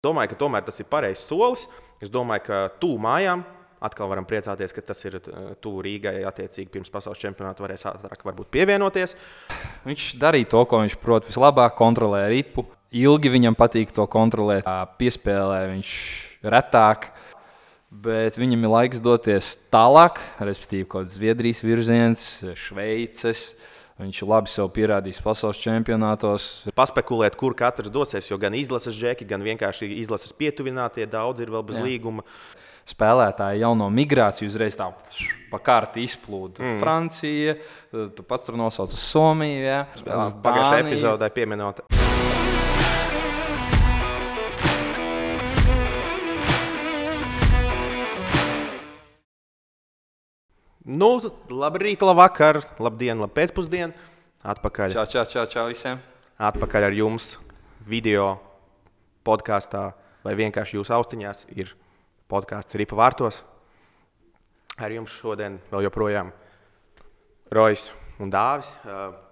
Domāju, ka tomēr tas ir pareizs solis. Es domāju, ka tuvu mājām atkal varam priecāties, ka tas ir tuvu Rīgai. Attiecīgi pirms pasaules čempionāta varēs ātrāk varbūt pievienoties. Viņš darīja to, ko viņš prot vislabāk, kontrolē ripu. Ilgi viņam patīk to kontrolēt, piespēlē viņš retāk. Bet viņam ir laiks doties tālāk, respektīvi kaut kāds Zviedrijas virziens, Šveices. Viņš labi sev pierādījis pasaules čempionātos. Paspekulēt, kur katrs dosies, jo gan izlases džeki, gan vienkārši izlases pietuvinātie daudz ir vēl bez līguma. Spēlētāji jauno migrāciju uzreiz tā pa kārti izplūda. Francija, tu pats tur nosauc uz Somiju. Ja? Pagājušajā epizodē pieminot. Nu, labrīt, labvakar, labdien, labpēcpusdien. Atpakaļ. Čau visiem. Atpakaļ ar jums video podkāstā vai vienkārši jūsu austiņās ir podkāsts Ripa vārtos. Ar jums šodien vēl joprojām Rojs un Dāvis.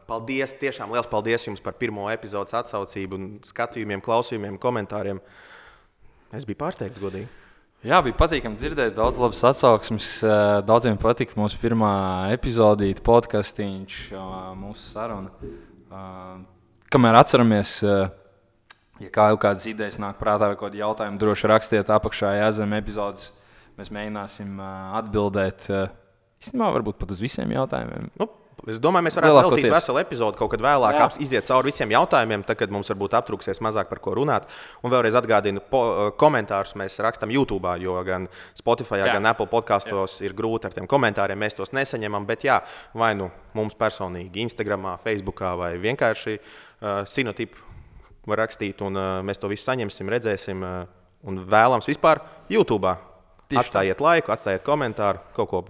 Paldies, tiešām liels paldies jums par pirmo epizodes atsaucību un skatījumiem, klausījumiem, komentāriem. Es biju pārsteigts, godīgi. Jā, bija patīkami dzirdēt, daudz labas atsauksmes. Daudziem patika mūsu pirmā epizodīte, podkastiņš, mūsu saruna. Kamēr atceramies, ja kādas idejas nāk prātā vai kādi jautājumi, droši rakstiet apakšā zem epizodes. Mēs mēģināsim atbildēt, īstenībā varbūt pat uz visiem jautājumiem. Es domāju, mēs varētu veltīt veselu epizodu kaut kad vēlāk, iziet cauri visiem jautājumiem, tad, kad mums varbūt aptrūksies mazāk par ko runāt. Un vēlreiz atgādinu, komentārus mēs rakstām YouTube, jo gan Spotify, gan Apple podkastos ir grūti ar tiem komentāriem, mēs tos nesaņemam, bet vai nu mums personīgi, Instagramā, Facebookā vai vienkārši Sinotipu var rakstīt, un mēs to visu saņemsim, redzēsim, un vēlams vispār YouTube. Atstājiet laiku, atstājiet komentāru, kaut ko.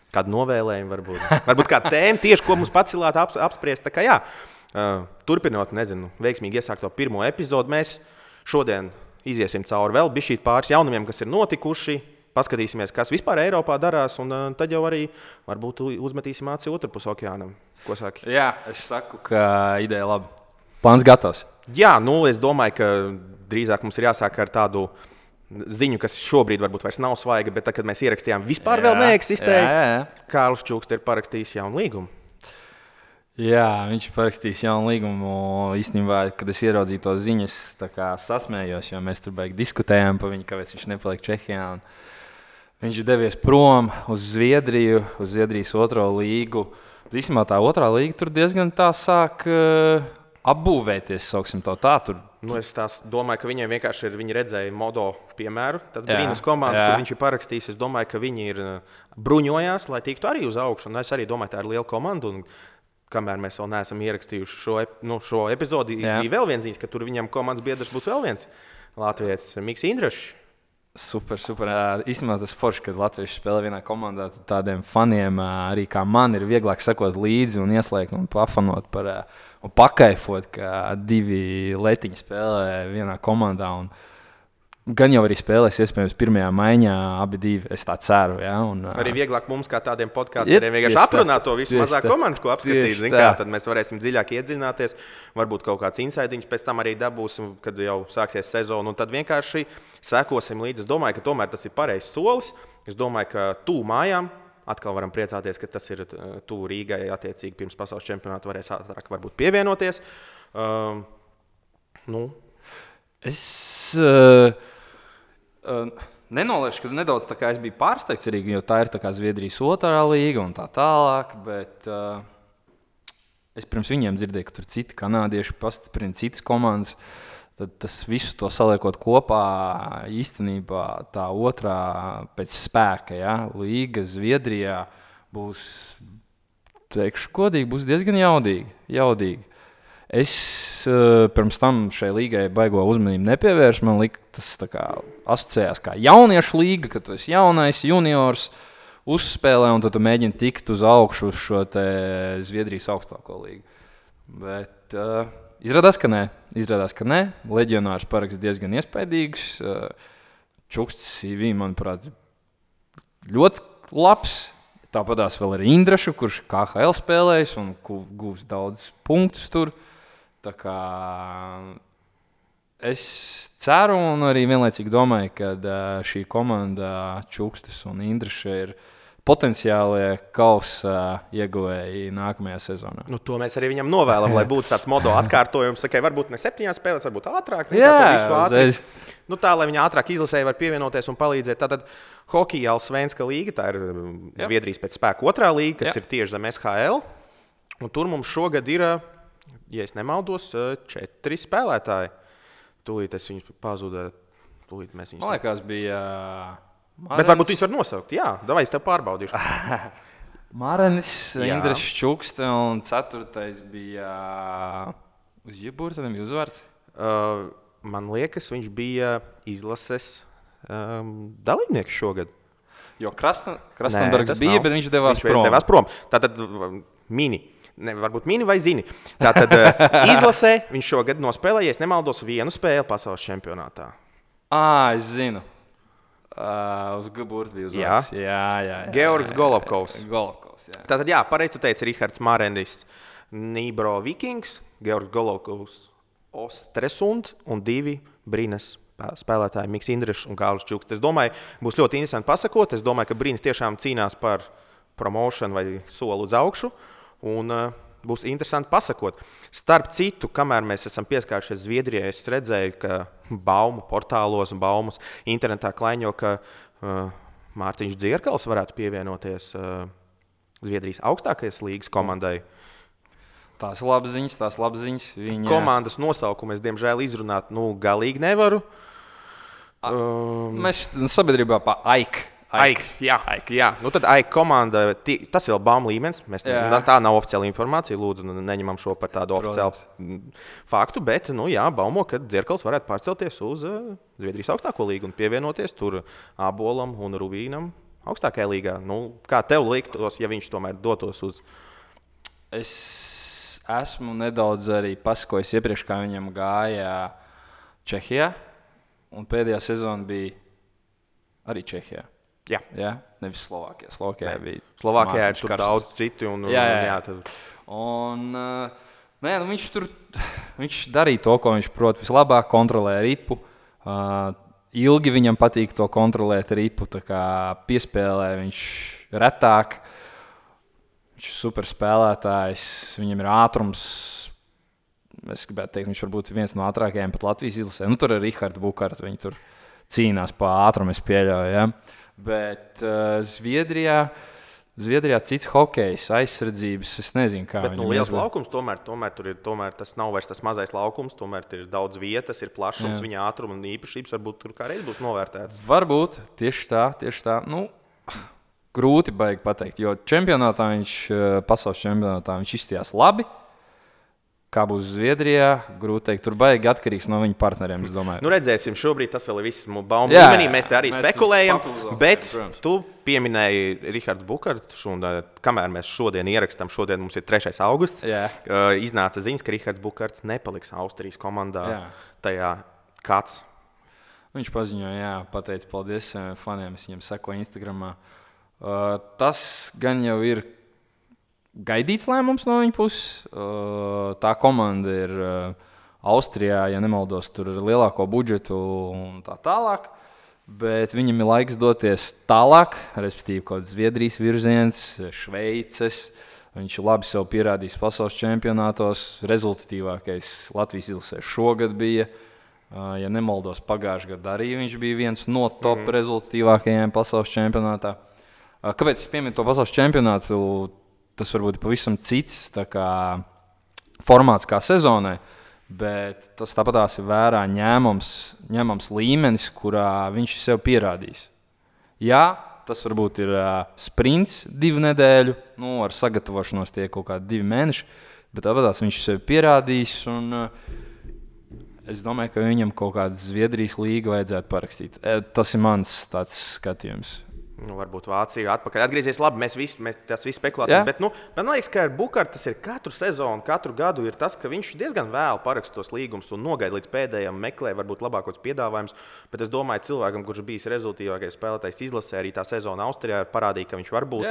Kādu novēlējumu varbūt. Varbūt kāda tēma tieši, ko mums pacilāt apspriest. Tā kā turpinot, veiksmīgi iesākt to pirmo epizodu, mēs šodien iziesim cauri vēl bišķīt pāris jaunumiem, kas ir notikuši. Paskatīsimies, kas vispār Eiropā darās, un tad jau arī varbūt uzmetīsim aci otrpus okeānam. Ko saki? Jā, es saku, ka ideja labi. Plāns gatavs. Jā, es domāju, ka drīzāk mums ir jāsāk ar tādu ziņu, kas šobrīd varbūt vairs nav svaiga, bet tad, kad mēs ierakstījām, vispār vēl neeksistēja. Kārlis Čukste ir parakstījis jaunu līgumu. Jā, viņš parakstījis jaunu līgumu. Īstenībā, kad es ieraudzīju to ziņas, tā kā sasmējos, jo mēs tur baigi diskutējām par viņu, kāpēc viņš nepaliek Čehijā. Viņš ir devies prom uz Zviedriju, uz Zviedrijas otro līgu. Īstenībā tā otrā līga tur diezgan tā sāk apbūvēties, sauksim to tā. Es domāju, ka viņiem vienkārši viņi redzēja Modo piemēru. Tad Brīnas komanda, kur viņš ir parakstījis, es domāju, ka viņi ir bruņojās, lai tiktu arī uz augšu. Un es arī domāju, tā ir liela komanda. Un kamēr mēs vēl neesam ierakstījuši šo epizodi, bija vēl viens ziņas, ka tur viņam komandas biedrs būs vēl viens latvietis, Miks Indrašs. Super. Īstenībā tas forši, kad latvieši spēlē vienā komandā, tad tādiem faniem arī kā man ir vieglāk sekot līdzi un ieslēgt un pafanot un pakaifot, ka divi letiņi spēlē vienā komandā. Un gan jau arī spēlēs iespējams pirmajā maiņā abi divi, es tā ceru. Ja? Arī vieglāk mums kā tādiem podkāstiem vienkārši aprunāt to visu mazāk komandas, ko apskatīt. Tad mēs varēsim dziļāk iedziļināties, varbūt kaut kāds insaidiņš pēc tam arī dabūsim, kad jau sāksies sezona. Un tad vienkārši sekosim līdzi. Es domāju, ka tomēr tas ir pareizs solis. Es domāju, ka tuvu mājām atkal varam priecāties, ka tas ir tuvu Rīgai. Attiecīgi pirms pasaules čempionāta varēs ātrāk varbūt pievienoties. Es nenolieku, ka nedaudz tā kā es biju pārsteigts arī, jo tā ir tā kā Zviedrijas otrā līga un tā tālāk, bet es pirms viņiem dzirdēju, ka tur citi kanādieši pastiprina citas komandas. Tad tas visu to saliekot kopā, īstenībā tā otrā pēc spēka, līga Zviedrijā būs, teikšu godīgi, būs diezgan jaudīga. Es pirms tam šai līgai baigo uzmanību nepievēršu. Man liekas, tas tā kā asociējās kā jauniešu līga, ka tu esi jaunais juniors, uzspēlē un tad tu mēģini tikt uz augšu uz šo te Zviedrijas augstāko līgu. Bet izrādās, ka nē. Leģionārs paraksts diezgan iespaidīgs. Čukstes CV, manuprāt, ļoti labs. Tāpatās vēl ir Indrašu, kurš KHL spēlējis un gūs daudz punktus tur. Tā kā Es ceru un arī vienlaicīgi domāju, ka šī komanda Čukstis un Indriša ir potenciālie kausa ieguvēji nākamajā sezonā. Nu, to mēs arī viņam novēlam, lai būtu tāds modo atkārtojums. Sakai, varbūt ne 7 spēlēs, varbūt ātrāk. Nu, tā, lai viņi ātrāk izlasēji var pievienoties un palīdzēt. Tātad hokeja Allsvenska līga, tā ir Zviedrijas pēc spēka otrā līga, kas ir tieši zem SHL. Un tur mums šogad ir, ja es nemaldos, 4 spēlētāji. Tūlīt es viņus pazudēju. Man liekas, bija... Bet varbūt viņus var nosaukt. Jā, davai es tev pārbaudīšu. Mārenis, Indrišs Čukste un 4. bija uz Jebūra, tad bija uzvārds. Man liekas, viņš bija izlases dalībnieks šogad. Jo Krastenbergs bija, bet viņš devās prom. Tātad mini. Ne, varbūt mini vai zini. Tātad izlasē viņš šogad nospēlēja, ja nemaldos, 1 spēli pasaules čempionātā. Es zinu. Uz Gaburta bija uzvārds. Jā. Georgs Golovkovs. Jā. Tātad, pareizi tu teici, Rihards Mārenis, Nībro Vikings, Georgs Golovkovs, Ostresund un 2 Brīnes spēlētāji Miks Indrišs un Kārlis Čuksts. Es domāju, būs ļoti interesanti pasakot. Es domāju, ka Brīnes tiešām cīnās par promošanu vai soli uz augšu. Un būs interesanti pasakot. Starp citu, kamēr mēs esam pieskārušies Zviedrijai, es redzēju, ka baumu portālos un baumas internetā klaiņo, ka Mārtiņš Dzierkals varētu pievienoties Zviedrijas augstākajās līgas komandai. Tās labas ziņas. Komandas nosaukumu es, diemžēl, izrunāt galīgi nevaru. Mēs sabiedrībā pa AIK. Jā. Nu, tad AIK komanda, tas ir baumu līmenis. Tā nav oficiāla informācija. Lūdzu, neņemam šo par tādu oficiālu faktu. Bet, baumo, ka Dzierkals varētu pārcelties uz Zviedrijas augstāko līgu un pievienoties tur Abolam un Rubīnam augstākajā līgā. Kā tev liktos, ja viņš tomēr dotos uz? Es esmu nedaudz arī pasakojis iepriekš, kā viņam gāja Čehijā. Un pēdējā sezona bija arī Čehijā. Jā, nevis Slovākijā. Slovākijā ir tur daudz citu. Viņš darīja to, ko viņš prot vislabāk, kontrolē ripu. Ilgi viņam patīk to kontrolēt ripu, tā kā piespēlē viņš retāk. Viņš ir super spēlētājs, viņam ir ātrums. Es gribētu teikt, viņš varbūt viens no ātrākajiem pat Latvijas izlasē. Tur ir Rihards Bukārts, viņi tur cīnās pa ātrumu, es pieļauju. Ja? Bet Zviedrijā cits hokejs, aizsardzības, es nezinu, kā viņam ir. Liels laukums, tomēr tas nav vairs tas mazais laukums, tomēr ir daudz vietas, ir plašums, viņa ātruma un īpašības varbūt tur kādreiz būs novērtētas. Varbūt, tieši tā. Grūti baigi pateikt, jo pasaules čempionātā viņš izstījās labi. Kā būs Zviedrijā, grūti teikt. Tur baigi atkarīgs no viņa partneriem, es domāju. Redzēsim, šobrīd tas vēl ir viss baumu līmenī. Mēs te arī spekulējam, bet tu pieminēji Rihards Bukārts. Kamēr mēs šodien ierakstām, šodien mums ir 3. augusts, iznāca ziņas, ka Rihards Bukārts nepaliks Austrijas komandā. Tajā kāds? Viņš paziņoja, pateica paldies faniem, es viņam sekoju Instagramā. Tas gan jau ir gaidīts lēmums no viņa puses. Tā komanda ir Austrijā, ja nemaldos, tur ir lielāko budžetu un tā tālāk. Bet viņam ir laiks doties tālāk, respektīvi kaut kāds Zviedrijas virziens, Šveices. Viņš labi sev pierādījis pasaules čempionātos. Rezultatīvākais Latvijas izlasē šogad bija. Ja nemaldos, pagājušajā gadā arī viņš bija viens no top rezultatīvākajiem pasaules čempionātā. Kāpēc es pieminu to pasaules čempionātu? Tas varbūt ir pavisam cits formāts kā sezonai, bet tas tāpatās ir vērā ņemams līmenis, kurā viņš ir sev pierādījis. Jā, tas varbūt ir sprints 2 nedēļu, ar sagatavošanos tie kaut kādi 2 mēneši, bet tāpatās viņš ir sev pierādījis, un es domāju, ka viņam kaut kāda Zviedrijas līga vajadzētu parakstīt. Tas ir mans tāds skatījums. Varbūt Vācija atpakaļ atgriezīsies. Labi, mēs tas viss spekulācijas. Bet man liekas, ka ar Bukārtu tas ir katru sezonu, katru gadu ir tas, ka viņš diezgan vēlu paraksta tos līgumus un nogaida līdz pēdējiem, meklē varbūt labākos piedāvājumus. Bet es domāju, cilvēkam, kurš bijis rezultātīvākais spēlētājs izlasē, arī tā sezona Austrijā parādīja, ka viņš var būt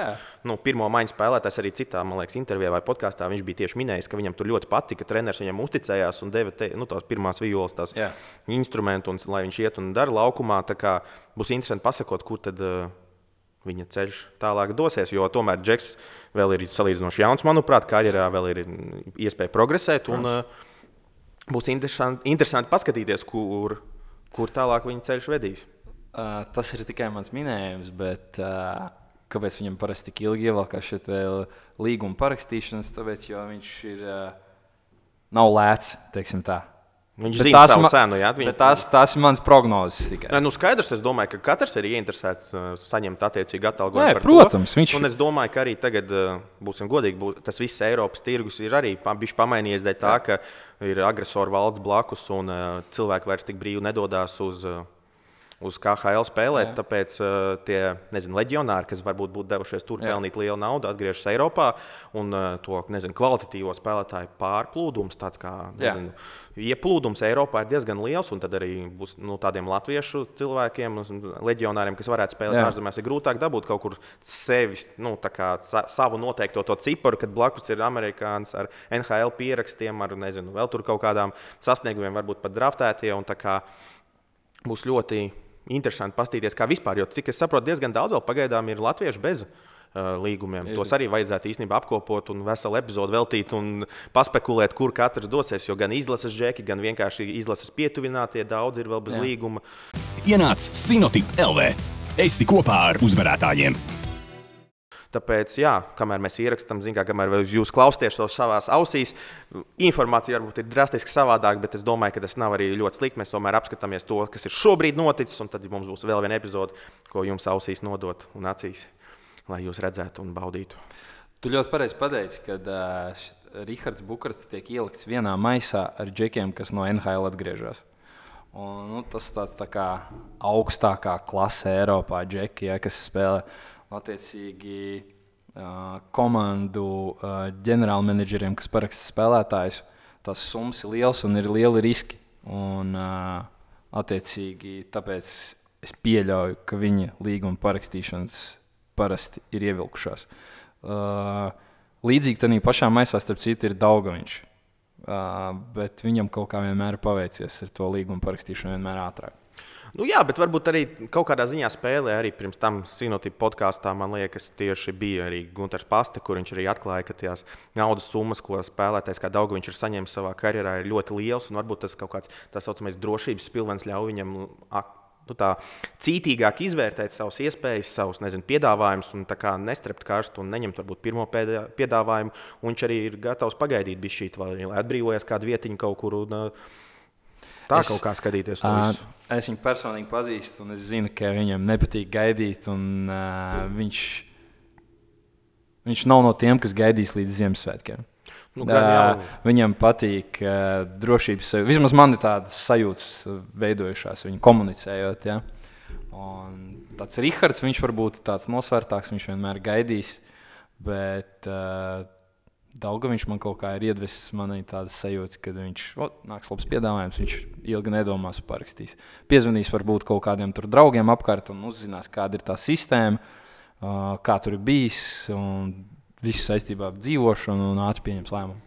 pirmo maiņu spēlētājs arī citā, man liekas, intervijā vai podkāstā. Viņš bija tieši minējis, ka viņam tur ļoti patika, ka treneris viņam uzticējās un deva tās pirmās violas, tās instrumentus, lai viņš iet un dara laukumā. Tā kā būs interesanti pasakot, kur tad viņa ceļš tālāk dosies, jo tomēr Džeks vēl ir salīdzinoši jauns, manuprāt, karjerā vēl ir iespēja progresēt. Un, būs interesanti paskatīties, kur tālāk viņa ceļš vedīs. Tas ir tikai mans minējums, bet kāpēc viņam parasti tik ilgi ievelkās šeit līguma parakstīšanas? Tāpēc, jo viņš ir nav lēts, teiksim tā. Viņš zina savu cenu, jā. Tās ir mans prognozes tikai. Skaidrs, es domāju, ka katrs ir ieinteresēts saņemt attiecīgu atalgojumu par protams, to. Un es domāju, ka arī tagad, būsim godīgi, tas viss Eiropas tirgus ir arī bišķi pamainījies dēļ tā, ka ir agresoru valsts blakus un cilvēki vairs tik brīvi nedodās uz KHL spēlēt, tāpēc tie, leģionāri, kas varbūt būtu devušies tur pelnīt lielu naudu, atgriežas Eiropā un to, kvalitatīvo spēlētāju pārplūdums, tāds kā, ieplūdums Eiropā ir diezgan liels, un tad arī būs tādiem latviešu cilvēkiem, leģionāriem, kas varētu spēlēt ārzemēs, ir grūtāk dabūt kaut kur sevis, savu noteikto to ciparu, kad blakus ir amerikāns ar NHL pierakstiem, ar, vēl tur kaut kādām sasniegumiem, varbūt pat draftētie, un tā kā būs ļoti interesanti paskatīties, kā vispār, jo, cik es saprotu, diezgan daudz vēl pagaidām ir latvieši bez līgumiem. Tos arī vajadzētu īstenībā apkopot un veselu epizodu veltīt un paspekulēt, kur katrs dosies, jo gan izlases džeki, gan vienkārši izlases pietuvinātie daudz ir vēl bez līguma. Ienāc Sinotip LV. Esi kopā ar uzvarētājiem. Tāpēc, kamēr mēs ierakstām, kamēr jūs klausāties to savās ausīs, informācija varbūt ir drastiski savādāk, bet es domāju, ka tas nav arī ļoti slikti. Mēs tomēr apskatāmies to, kas ir šobrīd noticis, un tad mums būs vēl viena epizode, ko jums ausīs nodot un acīs, lai jūs redzētu un baudītu. Tu ļoti pareizi pateici, kad Rihards Bukarts tiek ielikts vienā maisā ar džekiem, kas no NHL atgriežas. Un, tas tāds tā kā augstākā klase Eiropā džeki, kas spēlē. Attiecīgi komandu ģenerālmenedžeriem, kas paraksta spēlētājus, tās summas ir liels un ir lieli riski. Un, attiecīgi, tāpēc es pieļauju, ka viņa līguma parakstīšanas parasti ir ievilkušās. Līdzīgi tādā pašā maisā, starp citu, ir Daugaviņš. Bet viņam kaut kā vienmēr paveicies ar to līguma parakstīšanu vienmēr ātrāk. Bet varbūt arī kaut kādā ziņā spēlē arī pirms tam Sinotip podkāstā, man liekas, tieši bija arī Gunters Paste, kur viņš arī atklāja, ka tās naudas summas, ko spēlētājs kā Daugaviņš ir saņēmis savā karjerā, ir ļoti liels, un varbūt tas kaut kāds tā saucamais drošības pilvens ļauj viņam tā cītīgāk izvērtēt savas iespējas, savus piedāvājumus un tā kā nestrept karstu un neņemt varbūt pirmo piedāvājumu, un viņš arī ir gatavs pagaidīt bišķīt, lai atbrīvojas kādu vietiņu kaut kur un kaut kā skatīties to visu. Es viņu personīgi pazīstu, un es zinu, ka viņam nepatīk gaidīt. Viņš nav no tiem, kas gaidīs līdz Ziemassvētkiem. Viņam patīk drošības sajūta. Vismaz man ir tādas sajūtas veidojušās, viņu komunicējot. Ja? Un tāds Rihards, viņš varbūt tāds nosvērtāks, viņš vienmēr gaidīs. Bet Daugaviņš man kaut kā ir iedvesis manai tādas sajūtas, kad viņš nāks labs piedāvājums, viņš ilgi nedomās un parakstīs. Piezvanīs varbūt kaut kādiem tur draugiem apkārt un uzzinās, kāda ir tā sistēma, kā tur ir bijis un visu saistībā ar dzīvošanu un ātri pieņems lēmumu.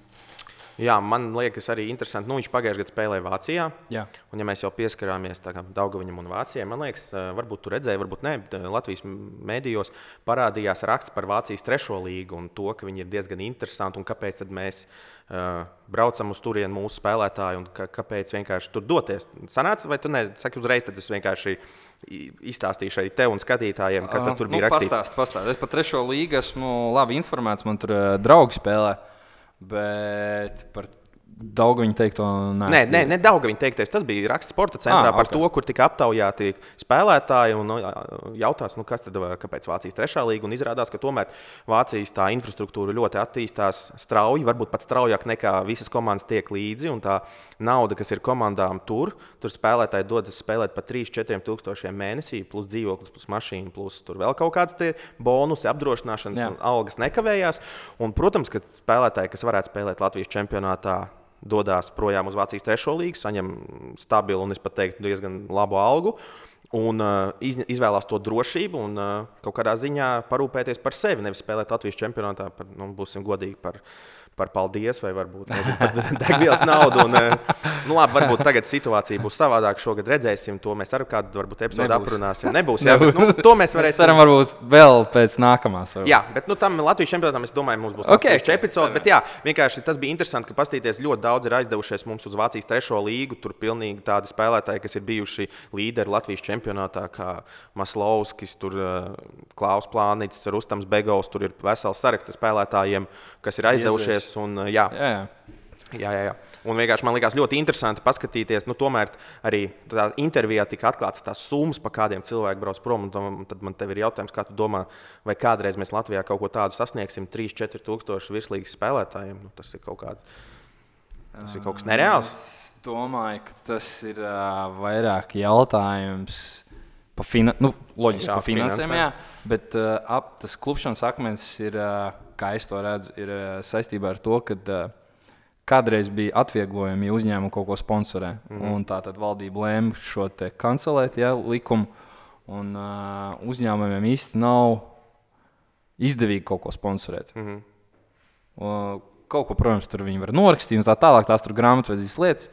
Jā, man liekas arī interesanti. Viņš pagājušajā gadā spēlēja Vācijā. Jā. Un ja mēs jau pieskarāmies Daugaviņam un Vācijai, man liekas, varbūt tu redzēji, varbūt ne, Latvijas mēdījos parādījās raksts par Vācijas 3. līgu un to, ka viņi ir diezgan interesanti un kāpēc tad mēs braucam uz turieni mūsu spēlētāju un kāpēc vienkārši tur doties. Sanāca, vai tu ne? Saki uzreiz, tad es vienkārši izstāstīšu arī tev un skatītājiem, kas tur bija rakstīts. Pastāst. Es par 3. līgu esmu labi informēts, man tur draugi spēlē. Bet par Daugaviņa teikto Nē, Daugaviņa teiktais. Tas bija raksts sporta centrā par to, kur tika aptaujāti spēlētāji un jautās, kas tad, kāpēc Vācijas 3. līga. Un izrādās, ka tomēr Vācijas tā infrastruktūra ļoti attīstās strauji, varbūt pat straujāk nekā visas komandas tiek līdzi. Un tā nauda, kas ir komandām tur spēlētāji dodas spēlēt par 3-4 tūkstošiem mēnesī, plus dzīvoklis, plus mašīna, plus tur vēl kaut kādas bonusi, apdrošināšanas un algas nekavējās. Un, protams, ka spēlētāji, kas varētu spēlēt Latvijas čempionātā, dodas projām uz Vācijas 3. līgu, saņem stabilu un, es pat teiktu, diezgan labu algu un izvēlās to drošību un kaut kādā ziņā parūpēties par sevi, nevis spēlēt Latvijas čempionātā par, būsim godīgi, par paldies vai varbūt par degvielas naudu. Un, labi, varbūt tagad situācija būs savādāka. Šogad redzēsim, to mēs ar kādu varbūt epizodu aprunāsim. Nebūs, jā, bet, to mēs varēsim. Ceram, varbūt vēl pēc nākamās. Varbūt. Jā, bet tam Latvijas čempionātam, es domāju, mums būs atsevišķa epizode. Bet jā, vienkārši tas bija interesanti, ka pastīties ļoti daudz ir aizdevušies mums uz Vācijas 3. līgu. Tur pilnīgi tādi spēlētāji, kas ir bijuši līderi Latvijas čempionātā, kā Maslovskis, Klaus Plānītis, Rustams Begovs. Tur ir vesels saraksts spēlētājiem, kas ir aizdevušies. Un, jā. Un vienkārši man likās ļoti interesanti paskatīties. Tomēr arī tādā intervijā tika atklātas tās summas, pa kādiem cilvēki brauc prom. Tad man tev ir jautājums, kā tu domā, vai kādreiz mēs Latvijā kaut ko tādu sasniegsim 3-4 tūkstoši virslīgas spēlētājiem? Tas ir kaut kas nereāls. Es domāju, ka tas ir vairāk jautājums par finansēm, bet tas klupšanas akmens ir, kā es to redzu, ir saistībā ar to, ka kādreiz bija atvieglojumi, ja uzņēmumi kaut ko sponsorē. Un tā tad valdība lēma šo te kancelēt, likumu, un uzņēmumiem īsti nav izdevīgi kaut ko sponsorēt. Kaut ko, protams, tur viņi var norakstīt un tā tālāk, tās tur grāmatvedības lietas,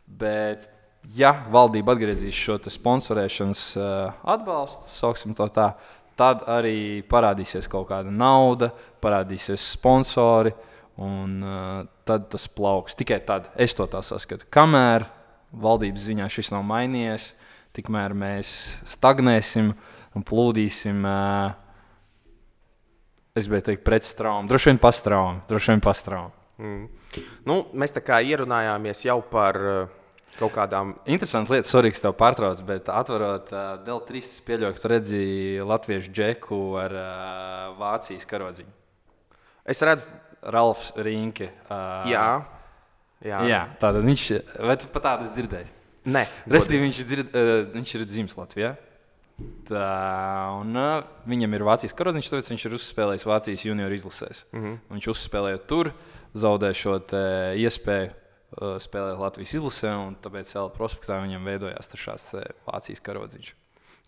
bet ja valdība atgriezīs šo sponsorēšanas atbalstu, sauksim to tā, tad arī parādīsies kaut kāda nauda, parādīsies sponsori, un tad tas plauks. Tikai tad es to tā saskatu. Kamēr valdības ziņā šis nav mainījies, tikmēr mēs stagnēsim un plūdīsim, es gribēju teikt, pret straumu. Droši vien pastraumu. Mēs tā kā ierunājāmies jau par kaut kādām. Interesanti lietas, sorry, ka tev pārtrauc, bet atverot Dēl3, es pieļauju, ka tu redzēji latviešu džeku ar Vācijas karodziņu. Es redzu Ralfs Rīnke. Jā, tātad viņš, vai tu pat tādu dzirdēji? Nē. Respektīvi, viņš ir dzimis Latvijā. Un viņam ir Vācijas karodziņš, tāpēc viņš ir uzspēlējis Vācijas junioru izlasēs. Viņš uzspēlējot tur, zaudēja šo iespēju spēlēt Latvijas izlasē, un tāpēc prospektā viņam veidojās šāds Vācijas karodziņš.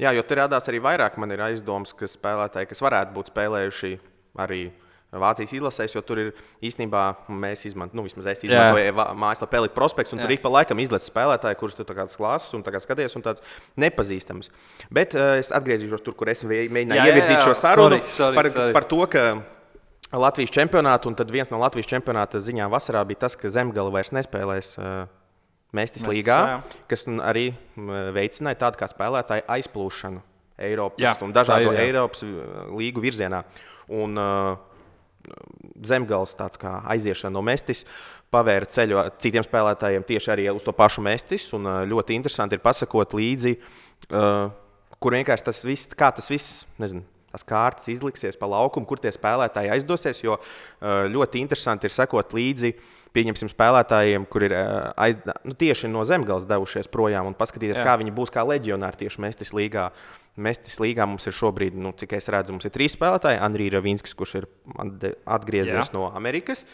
Jā, jo tur radās arī vairāk, man ir aizdomas, ka spēlētāji, kas varētu būt spēlējuši arī Vācijas izlasēs, jo tur ir īstenībā mēs izmantoju mājaslapu Elite Prospects, un tur ik pa laikam izlaiž spēlētāji, kurus tu kāds klases un skaties, un tāds nepazīstams. Bet es atgriezīšos tur, kur es mēģināju ievirzīt šo sarunu par to, ka Latvijas čempionātu, un tad viens no Latvijas čempionāta ziņām vasarā bija tas, ka Zemgale vairs nespēlēs Mestis līgā, kas arī veicināja tādu kā spēlētāju aizplūšanu Eiropas un dažādu Eiropas līgu virzienā. Un Zemgales tāds kā aiziešana no Mestis pavēra ceļu citiem spēlētājiem tieši arī uz to pašu Mestis, un ļoti interesanti ir pasakot līdzi, kur vienkārši tas viss, nezinu, tās kārtas izliksies pa laukumu, kur tie spēlētāji aizdosies, jo ļoti interesanti ir sekot līdzi, pieņemsim spēlētājiem, kur ir tieši no Zemgales devušies projām un paskatīties, kā viņi būs kā leģionāri tieši Mestis līgā. Mestis līgā mums ir šobrīd, cik es redzu, mums ir 3 spēlētāji. Andrijs Ravinskis, kurš ir atgriezies no Amerikas,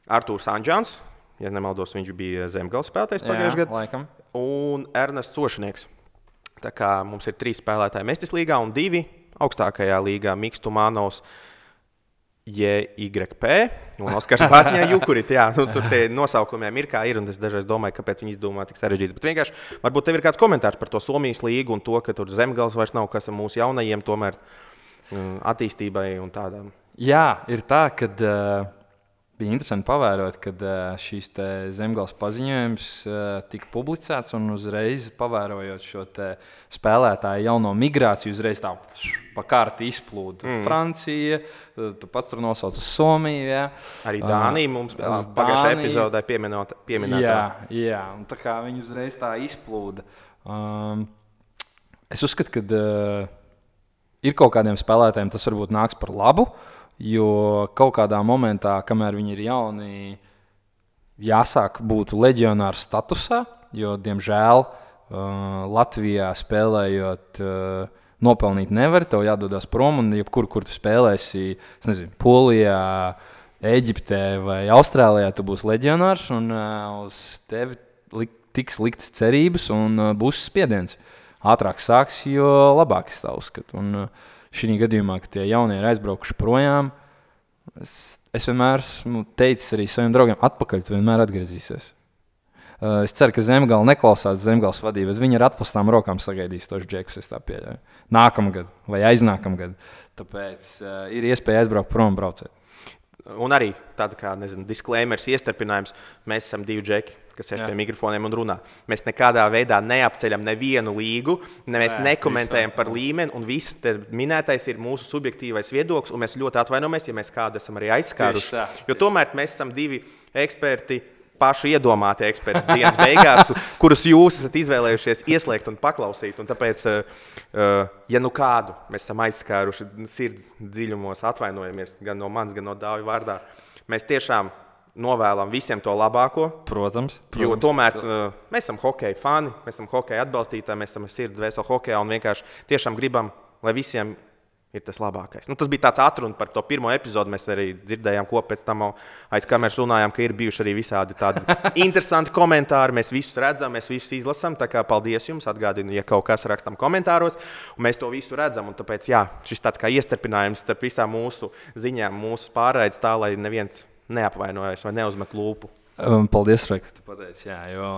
Artūrs Anģāns, ja nemaldos, viņš bija Zemgales spēlētājs pagājušajā gadā, un Ernests Sošinieks. Tā kā mums ir 3 spēlētāji Mestis līgā un 2 augstākajā līgā Miks Tumanovs, JYP un Oskars Batņā-Jukurit. Tur tie nosaukumiem ir kā ir, un es dažreiz domāju, kāpēc viņi izdomā tik sarežģīts. Bet vienkārši, varbūt tev ir kāds komentārs par to Somijas līgu un to, ka tur Zemgales vairs nav, kas ar mūsu jaunajiem tomēr attīstībai un tādām. Jā, ir tā, ka bija interesanti pavērot, kad šīs Zemgales paziņojums tika publicēts un uzreiz pavērojot šo spēlētāju jauno migrāciju, uzreiz tā pa kārti izplūda. Francija, tu pats tur nosauc uz Somiju. Ja? Arī Dānija mums pagājušajā epizodē pieminēta. Jā, un tā kā viņi uzreiz tā izplūda. Es uzskatu, ka ir kaut kādiem spēlētājiem tas varbūt nāks par labu, jo kaut kādā momentā, kamēr viņi ir jauni, jāsāk būt leģionāru statusā, jo, diemžēl, Latvijā spēlējot nopelnīt nevar, tev jādodas prom, un jebkur, kur tu spēlēsi, es nezinu, Polijā, Eģiptē vai Austrālijā, tu būsi leģionārs, un uz tevi tiks liktas cerības un būs spiediens. Ātrāk sāks, jo labāk es tā uzskatu. Un šī gadījumā, kad tie jaunie ir aizbraukuši projām, es vienmēr esmu teicis arī saviem draugiem, atpakaļ tu vienmēr atgriezīsies. Es ceru, ka Zemgale neklausās Zemgales vadību, bet viņi ar atplastām rokām sagaidīs tos džekus, es tā pieļauju. Nākamgad vai aiznākamgad. Tāpēc ir iespēja aizbraukt prom un braucēt. Un arī tāda kā, disclaimers, iestarpinājums, mēs esam 2 džeki, kas sēž pie mikrofoniem un runā. Mēs nekādā veidā neapceļam nevienu līgu, mēs nekomentējam par līmeni, un viss minētais ir mūsu subjektīvais viedoklis, un mēs ļoti atvainojamies, ja mēs kādu esam arī aizskāruši. Jo tomēr mēs esam 2 eksperti, paši iedomāti eksperti dienas beigās, kurus jūs esat izvēlējušies ieslēgt un paklausīt. Un tāpēc, ja nu kādu mēs esam aizskāruši sirds dziļumos, atvainojamies gan no manis, gan no Dāvija vārdā, mēs tiešām novēlam visiem to labāko. Protams. Jo tomēr mēs esam hokeja fani, mēs esam hokeja atbalstītāji, mēs esam sirds dvēseli hokejā un vienkārši tiešām gribam, lai visiem ir tas labākais. Tas bija tāds atruna par to pirmo epizodu. Mēs arī dzirdējām, ko pēc tam aiz kameras runājām, ka ir bijuši arī visādi tādi interesanti komentāri. Mēs visus redzam, mēs visus izlasām. Tā kā paldies jums, atgādinu, ja kaut kas rakstam komentāros, un mēs to visu redzam. Un tāpēc, šis tāds kā iestarpinājums starp visām mūsu ziņām, mūsu pārraides tā, lai neviens neapvainojas vai neuzmet lūpu. Paldies, Rai, ka tu pateici, jo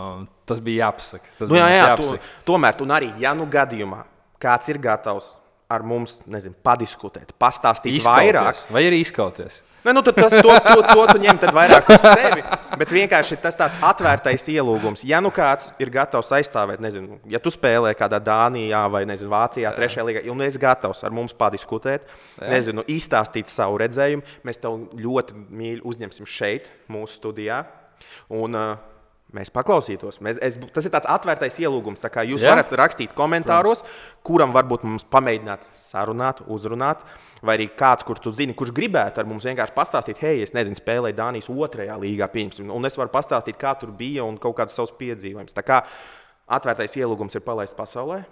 tas bija jāpasaka. Tomēr, un arī, ja nu gadījumā kāds ir gatavs ar mums, padiskutēt, pastāstīt vairāk. Vai arī izkauties? Tad to tu ņem vairāk uz sevi, bet vienkārši tas tāds atvērtais ielūgums. Ja nu kāds ir gatavs aizstāvēt, ja tu spēlē kādā Dānijā vai Vācijā, 3. līgā, un esi gatavs ar mums padiskutēt, izstāstīt savu redzējumu, mēs tev ļoti mīļi uzņemsim šeit, mūsu studijā. Un mēs paklausītos. Tas ir tāds atvērtais ielūgums. Tā kā jūs varat rakstīt komentāros, kuram varbūt mums pamēģināt sarunāt, uzrunāt, vai arī kāds, kur tu zini, kurš gribētu ar mums vienkārši pastāstīt, hei, es spēlēju Dānijas 2. līgā, un es varu pastāstīt, kā tur bija un kaut kādus savus piedzīvojumus. Tā kā atvērtais ielūgums ir palaists pasaulē.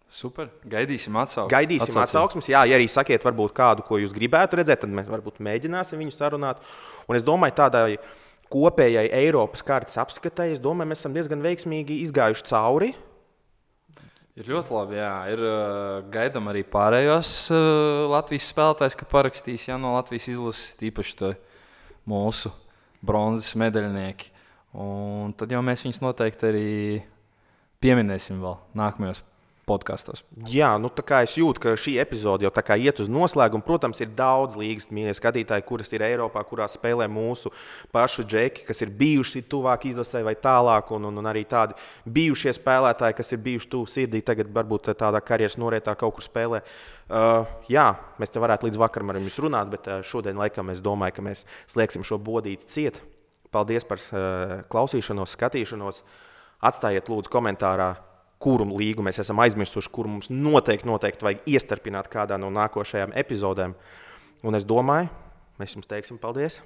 Super. Gaidīsim atsauksmes. Jā, ja arī sakiet varbūt kādu, ko jūs gribētu redzēt, tad mēs varbūt mēģināsim viņu sarunāt. Un es domāju, tādai kopējai Eiropas kartes apskatai, es domāju, mēs esam diezgan veiksmīgi izgājuši cauri. Ir ļoti labi, jā. Gaidām arī pārējos Latvijas spēlētājs, ka parakstīs no Latvijas izlases, tīpaši mūsu bronzas medaļnieki. Un tad jau mēs viņus noteikti arī pieminēsim vēl nākamajos podkastos. Jā, tā kā es jūtu, ka šī epizode jau tā kā iet uz noslēgumu. Protams, ir daudz līgas mīļie skatītāji, kuras ir Eiropā, kurās spēlē mūsu pašu džeki, kas ir bijuši tuvāk izlasē vai tālāk, un arī tādi bijušie spēlētāji, kas ir bijuši tuvu sirdī, tagad varbūt tādā karjeras norietā kaut kur spēlē. Mēs te varētu līdz vakaram ar jums runāt, bet šodien laikam es domāju, ka mēs slēgsim šo bodīti ciet. Paldies par klausīšanos, skatīšanos. Atstājiet lūdzu komentārā, kuru līgu mēs esam aizmirsuši, kuru mums noteikti vajag iestarpināt kādā no nākošajām epizodēm. Un es domāju, mēs jums teiksim paldies!